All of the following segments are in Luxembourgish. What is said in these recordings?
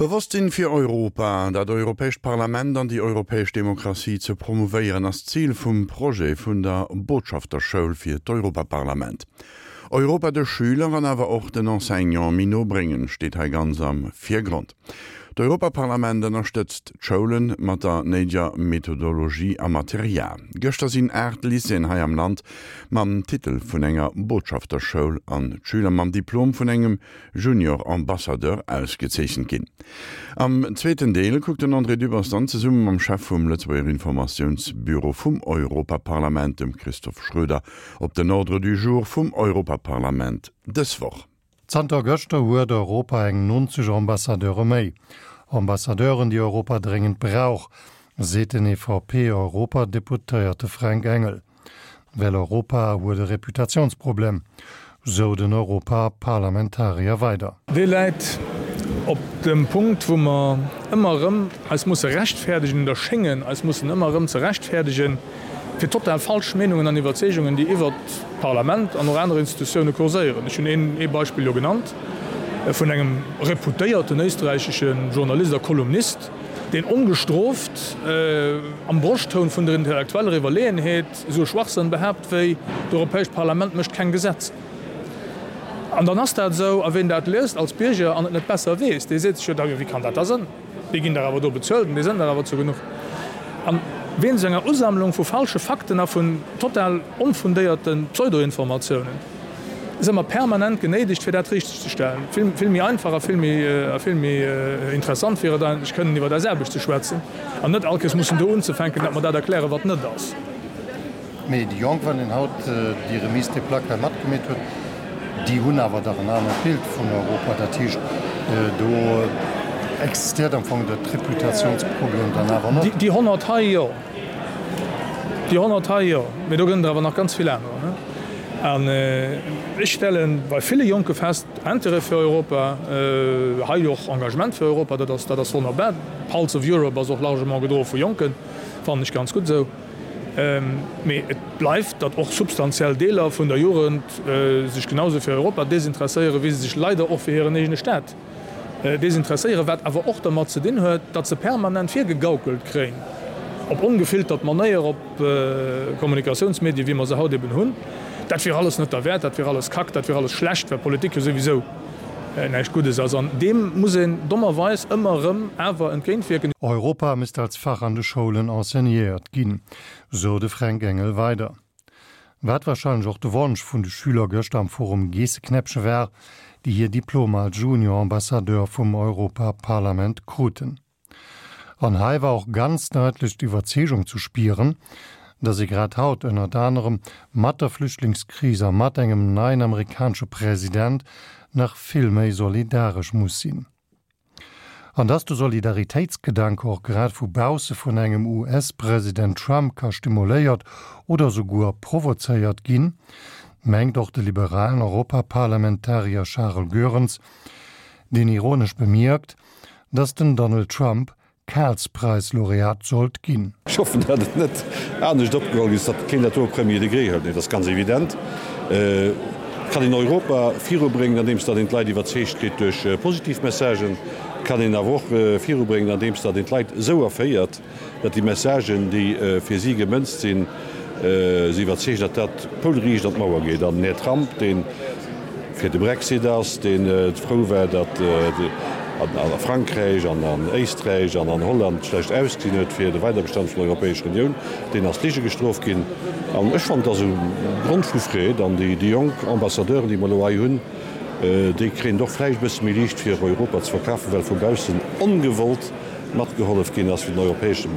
Bewosstsinn fir Europa, dat Europäescht Parlament an déi europäesch Demokratie ze promouvéieren, ass d'Zil vum Projet vun der Botschafterschoul fir d'Europaparlament. Europa de Schüler an awer och den Enseignante méi no bréngen, steet hei ganz am Virgrond. D'Europaparlament ënnerstëtzt d'Schoulen mat der néideger Methodologie a Material. Gëschter sinn 8 Lycéeën hei am Land mam Titel vun enger Botschafterschoul an d'Schüler mam Diplom vun engem Junior Ambassadeur ausgezeechent ginn. Am zweeten Deel kuckt den André Dübbers dann zesumme mam Chef vum Lëtzebuerger Informatiounsbüro vum Europaparlament, dem Christophe Schroeder, op den Ordre du jour vum Europaparlament dës Woch. Zanter gëschter huet Europa eng 90 Ambassadeure méi. Ambassadeuren, déi Europa dréngend brauch, seet den EVP-Europadeputéierte Fränk Engel. Well Europa huet e Reputatiounsproblem, sou den Europaparlamentarier weider. Dee läit op dem Punkt, wou mer ëmmer erëm eis musse rechtfäerdegen oder schéngen eis mussen ëmmer erëm ze rechtfäerdegen, fir total falsch Meenungen an Iwwerzeegungen, déi iwwert d'Parlament an och aner Institutioune kurséieren. Ech hunn ee Beispill jo genannt vun engem reputéierten éisträichesche Journalist a Kolumnist, deen ongestrooft am Broschttoun vun der intellektueller Iwwerleeënheet esou e Schwachsënn behaapt wéi, D'Europäescht Parlament mécht keng Gesetzer. An dann ass dat esou, a ween dat liest als Bierger an et net besser weess, dee seet sech jo da, jo wéi kann dat da sënn, déi ginn dach awer do bezuelt an déi sënn dach awer zu genuch. An wéinst enger Usammlung vu falsche Fakten a vun total onfundéierte Pseudoinformatiounen, Si mer permanent genéidegt, fir dat richteg ze stellen. Vill, vill méi einfach a vill méi, a vill méi interessant wier et eigentlech, kënnen iwwer eis Aarbecht ze schwätzen an net all Kéiers mussen do unzefänken, datt mer dat erklären, wat net ass. Mee déi Jonk, wann een haut déi Remise des plaques hei matgemeet huet, déi hunn awer dach en anert Bild vun Europa. Dat heescht, do existiert am Fong dat Reputationsproblem dann awer net. Déi 100 hei, jo. Déi 100 hei, jo, mee do gëtt et awer nach ganz vill anerer. An ech stelle bei ville Jonke fest, Intérêt fir Europa, hei och Engagement fir Europa, dat ass, dat ass wonnerbar. D'Pulse of Europe ass och largement gedroe vu Jonken, fannen ech ganz gutt esou. Mee et bleift, datt och substantiell Deeler vun der Jugend sech genau esou fir Europa desinteresséieren, wéi se sech leider och fir hiren eegene Staat Desinteresséieren, wat awer och dermat ze dinn huet, datt se permanent virgegaukelt kréien, op ongefiltert Manéier, op Kommunikatiounsmedien, wéi mer se haut eben hunn, dat wier alles net derwäert, dat wier alles Kack, dat wier alles schlecht, well Politik jo souwisou näischt Guddes ass. An deem muss een dommerweis ëmmer erëm awer entgéintwierken. Europa misst als Fach an de Schoulen enseignéiert ginn, sou de Fränk Engel weider. Wat warscheinlech och de Wonsch vun de Schüler gëschter am Forum Geesseknäppche war, déi hir Diplomer als Junior Ambassadeur vum Europaparlament kruten. An hei war och ganz daitlech d'Iwwerzeegung zu spieren, datt ee grad haut ënnert anerem mat der Flüchtlingskris a mat engem neien amerikanesche President nach vill méi solidaresch muss sinn. An dass de Solidaritéitsgedanke och grad vu bausse vun engem US-President Trump ka stimuléiert oder souguer provozéiert ginn, mengt och de liberalen Europaparlamentarier Charles Goerens, deen ironesch bemierkt, dass den Donald Trump Karlspreis-Laureat sollt ginn. Ech hoffen, datt et net anescht opgeholl ginn ass, datt keen dat do au premier degré hëlt. Mee et ass ganz evident, et kann een Europa virubréngen, andeems datt een d'Leit iwwerzeegt kritt duerch positiv Messagen. Et kann een awer och virubréngen, andeems datt een d'Leit esou erféiert, datt déi Messagen, déi fir si gemënzt sinn, si iwwerzeegen, datt dat poulriicht an d'Mauer geet. An den Här Trump, dee fir de Brexit ass, dee frou war, datt a Frankräich an an Éisträich an an Holland schlecht ausgesinn huet fir de Weiderbestand vun der Europäescher Unioun, deen ass Lige gestrooft ginn. An ech fannen, et ass e Grond vu Freed. An déi jonk Ambassadeuren, déi mer elo hei hunn, déi kréien et och vläicht e bësse méi liicht, fir Europa ze verkafen, well vu baussen ongewollt matgehollef ginn ass, fir den europäesche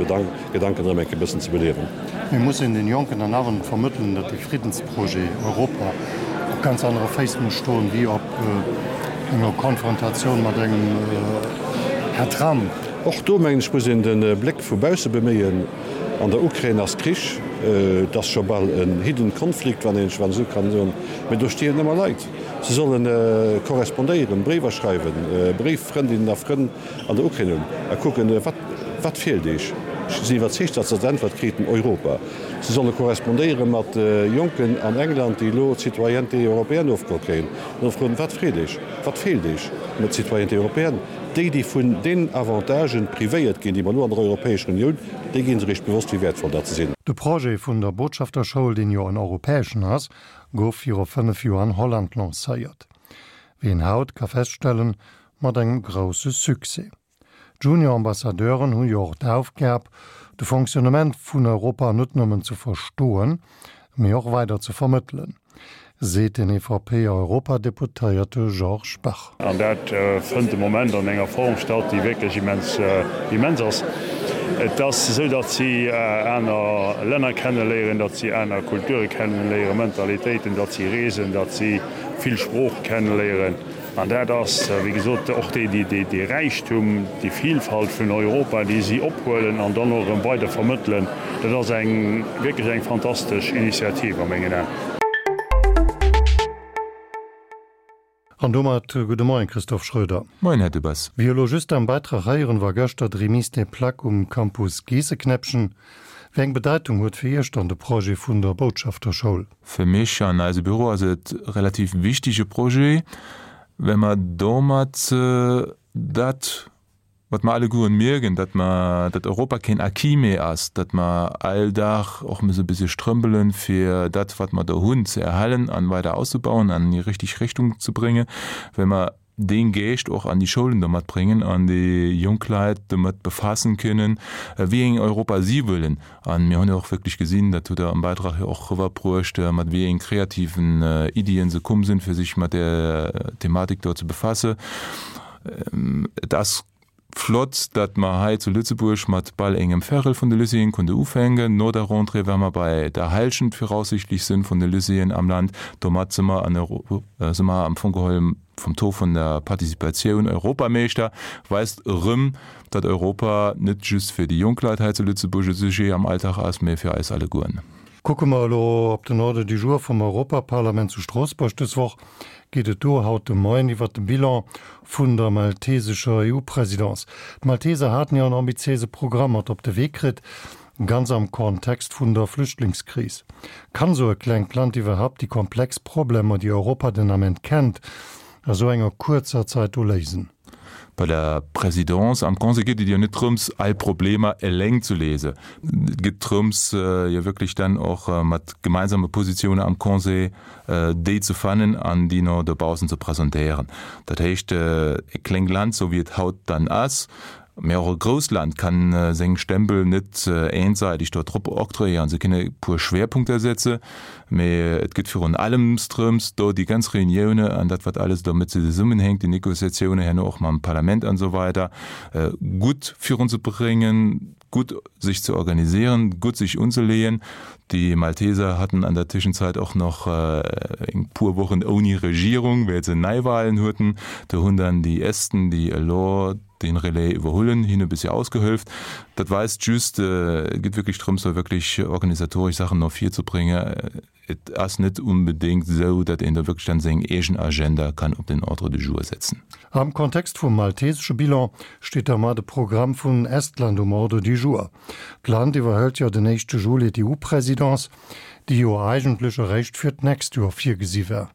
Gedanken erëm eng Kéier e bëssen ze beliewen. Mir mussen den Jonken dann awer net vermëttelen, datt de Friddensprojet Europa op ganz anere Féiss muss stoen, wéi op enger Konfrontatioun mat engem Här Trump. Och do, mengen ech, muss een de Bléck vu bausse beméien. An der Ukrain ass Krich, et ass scho bal en hidden conflict, wann een esou kann soen, mä do stierwen ëmmer Leit. Se solle korrespondéieren, Bréiwer schreiwen, Bréiffrëndinnen a Frënn an der Ukrain hunn a kucken, wat, wat feelt Iech? Ech sinn iwwerzeegt, datt se als Äntwert kriten, Europa. Se solle korrespondéiere mat Jonken an England, déi elo d'Citoyenneté européenne ofgeholl kréien, an da froen, Wat freet Iech? Wat feelt Iech mat Citoyenneté européenne? Déi, déi vun den Avantagen privéiert ginn, déi mer elo an der Europäescher Unioun, déi gi sech eréischt bewosst, wéi wäertvoll dat se sinn. De Projet vun der Botschafterschoul, deen jo en europäeschen ass, gouf viru 5 Joer an Holland lancéiert. Wéi een haut ka feststellen, mat engem grousse Succès. D'Junior-Ambassadeuren hu jo och d'Aufgab, de Fonctionnement vun Europa net nëmmen ze verstoen, mee och weider ze vermëttelen, seet den EVP-Europadeputéierte Georges Bach. An dat fënnt de Moment an enger Form statt, déi wierklech immens, immens ass. Et ass esou, datt si aner Länner kenneléieren, datt si aner Kulture kenneléieren, Mentalitéiten, datt si reesen, datt si vill Sprooche kenneléieren. An dat ass, wéi gesot, och dee Räichtum, déi Vielfalt vun Europa, déi si ophuelen an dann och erëm weider vermëttelen. Dat ass eng wierklech eng fantastesch Initiativ a mengen Aen. An domat gudde Moien, Christophe Schroeder. Moien, Här Dubas. Wéi elo just am Beitrag héieren, war gëschter d'Remise des Plaques um Campus Geesseknäppchen. Wéi eng Bedeitung huet fir Iech dann de Projet vun der Botschafterschoul? Fir mech an eise Büro ass et relativ wichtige Projet, well mer domat dat, wat mer allegueren mierken, datt mer, datt Europa keen Acquis méi ass, datt mer all Dag och musse e bëssche strëmpelen, fir dat, wat mer do hunn, ze erhalen an weider auszubauen an an déi richtig Richtung ze bréngen, well mer dee Geescht och an déi Schoulen domat bréngen an déi jonk Leit domat befaassen kënnen, wéi eng Europa si wëllen. A mir hunn jo och wierklech gesinn, dat hutt Der am Bäitrag jo och eriwwerbruecht, mat wéi eng kreativen Iddien se komm sinn, fir sech mat där Thematik do ze befassen. Et ass flott, datt mer hei zu Lëtzebuerg mat bal engem Vérel vun de Lycéeën konnte ufänken. No der Rentrée wäre mer bei der Hälschent viraussichtlech sinn vun de Lycéeën am Land. Domat si mer an si mer am Fong geholl vum Taux vun der Participatioun Europameeschter, weist erëm, datt Europa net just fir déi jonk Leit hei zu Lëtzebuerg e Sujet am Alltag ass, mä fir eis allegueren. Kucke mer elo op den Ordre du jour vum Europaparlament zu Stroossbuerg dës Woch, geet et do haut de Moien iwwert de Bilan vun der maltesescher EU-Presidence. D'Malteser haten jo en ambitiéise Programm mat op de Wee kritt, ganz am Kontext vun der Flüchtlingskris. Kann esou e klengt Land iwwerhaupt déi komplex Problemer, déi Europa den Ament kennt, a sou enger kuerzer Zait do léisen? Bei der Présidence am Conseil geet et jo net drëms, all Problemer eleng ze léisen. Et geet drëms, jo wierklech dann och mat gemeinsame Positiounen am Conseil déi ze fannen an déi no dobaussen ze presentéieren. Dat heescht, e klengt Land, sou wéi et haut dann ass, Mä och e grousst Land kann seng Stempel net eenseitig do drop octroyéieren. Se kënne e puer Schwerpunkter setze, mä et gëtt virun allems drëms, do déi ganz Reunioune an dat, wat alles domat zesummenhänkt, déi Négociatioune herno och mam Parlament an esou weider, gutt virunzebréngen, gutt sech ze organisieren, gutt sech unzeleeën. Déi Malteser hatten an der Tëschenzeit och nach eng puer Wochen ouni Regierung, well se Neiwahlen hueten. Do hunn dann déi Esten, déi elo den Relais iwwerhullen, hinne bëssi ausgehëlft. Dat weist just, et geet wierklech drëms, do wierklech organisatoresch Saachen no vir ze bréngen. Et ass net unbedéngt esou, datt een do wierklech dann seng eegen Agenda kann op den Ordre du jour setzen. Am Kontext vum maltesesche Bilan steet da mar de Programm vun Estland um Ordre du jour. D'Land iwwerhëlt jo den éischte Juli d'EU-Presidence, déi jo eigentlech eréischt fir d'nächst Joer virgesi war.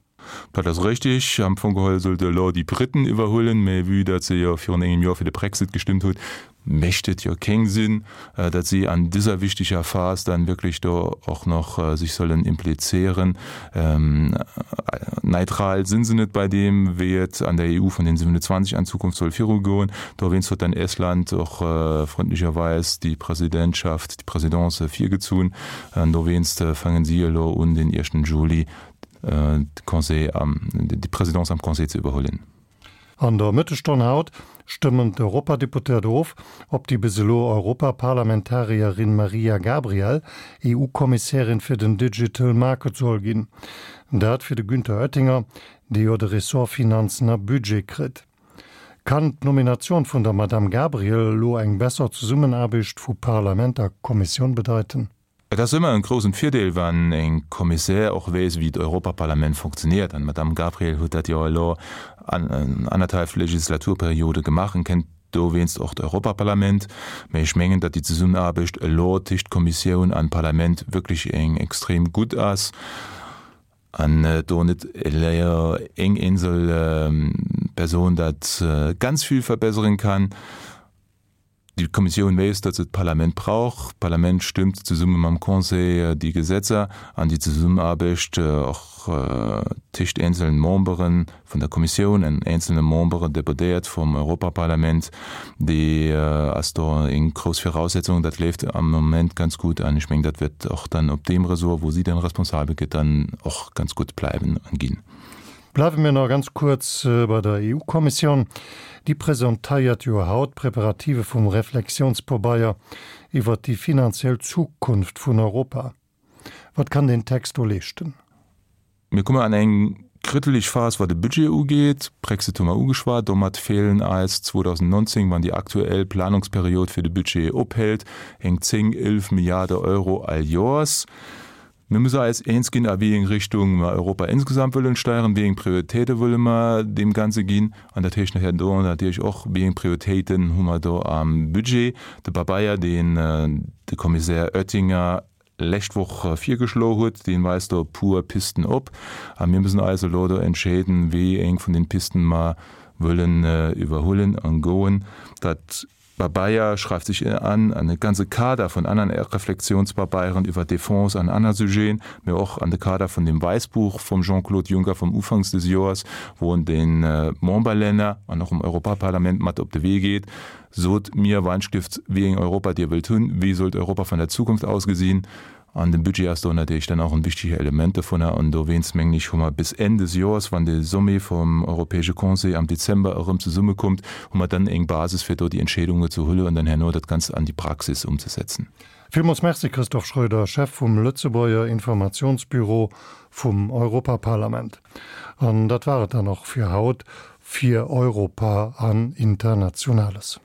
Dat ass richtig. Am Fong geholl sollte elo déi Briten iwwerhuelen, mä vue datt se jo virun engem Joer fir de Brexit gestëmmt hutt, mécht et jo kéng Sinn, datt si an dëser wichteger Phas dann wierklech do och nach sech sollen implizieren. Neutral sinn se net bei deem, wéi et an der EU vun den 27 an Zukunft soll virugoen. Dowéinst huet dann Estland och frëndlecherweis déi Presidentschaft, déi Présidence virgezunn. An dowéinst fangen si elo un, den éischten Juli de Conseil am, déi Présidence am Conseil ze iwwerhuelen. An der Mëttesstonn haut stëmmen d'Europadeputéiert of, ob déi bis elo Europaparlamentarierin Mariya Gabriel EU-Kommissärin fir den Digital Market soll ginn. Dat fir de Günther Oettinger, dee jo de Ressort Finanzen a Budget kritt. Kann d'Nominatioun vun der Madamm Gabriel elo eng besser Zesummenaarbecht vu Parlament a Kommissioun bedeiten? Et ass ëmmer en groussen Virdeel, wann e Kommissär och weess, wéi d'Europaparlament funktioniert. An d'Madame Gabriel huet dat jo elo an annerthalf Legislaturperiode gemaach an kennt. Dowéinst och d'Europaparlament. Mä ech mengen, datt déi Zesummenaarbecht elo téscht Kommissioun an Parlament wierklech eng extrem gutt ass an do net elo eng eenzel Persoun dat ganz vill verbesseren kann. Déi Kommissioun weess, datt se d'Parlament brauch. D'Parlament stëmmt zesumme mam Conseil déi Gesetzer an déi Zesummenaarbecht och téscht eenzelen Membere vun der Kommissioun an eenzelne Membere, Deputéiert vum Europaparlament, déi ass do eng grouss Viraussetzung. Dat leeft am Moment ganz gutt an ech mengen, dat wäert och dann op deem Ressort, wou si dann responsabel gëtt, dann och ganz gutt bleiwen an ginn. Bleiwe mir nach ganz kuerz bei der EU-Kommissioun. Déi presentéiert jo haut d'Preparative vum Reflexiounspabeier iwwert déi finanziell Zukunft vun Europa. Wat kann deen Text do leeschten? Mir komme an eng kriddeleg Phas, wat de Budget ugeet. Brexit hu mer ugeschwat. Domat feelen eis 2019, wann déi aktuell Planungsperiod fir de Budget ophält, eng 10, 11 Milliarde Euro all Joers. Mir musse eis eens ginn, a wéi eng Richtung mer Europa insgesamt wëllen steieren, wéi eng Prioritéite wëlle mer deem Ganze ginn. An dat heescht nachher do natierlech och, wéi eng Prioritéiten hu mer do am Budget. De Pabeier, deen de Kommissär Oettinger lescht Woch virgeschloe huet, dee weist do e puer Pisten op. A mir müssen eis elo do entscheeden, wéi eng vun den Pisten mer wëllen iwwerhuelen an goen. Dat Pabeier schreift sech an an e ganze Kader vun aneren Reflexionspabeieren iwwer Défense an aner Sujeten, mä och an de Kader vun dem Wäissbuch vum Jean-Claude Juncker vum Ufanks des Joers, wou en de Memberlänner an och dem Europaparlament mat op de Wee geet, Sot mir Weinstift, wéi eng Europa Dir wëllt hunn, wéi sollt Europa vun der Zukunft ausgesinn? An de Budget ass do natierlech dann och en wichtege Element dovunner. An dowéinst, mengen ech, hu mer bis Enn des Joers, wann de Sommet vum Europäesche Conseil am Dezember erëm zesummekommt, hu mer dann eng Basis, fir do déi Entscheedunge ze huelen an dann herno dat Ganzt an déi Praxis umzesetzen. Villmools Merci, Christophe Schröder, Chef vum Lëtzebuerger Informationsbüro vum Europaparlament. An dat war et dann och fir haut fir Europa an Internationales.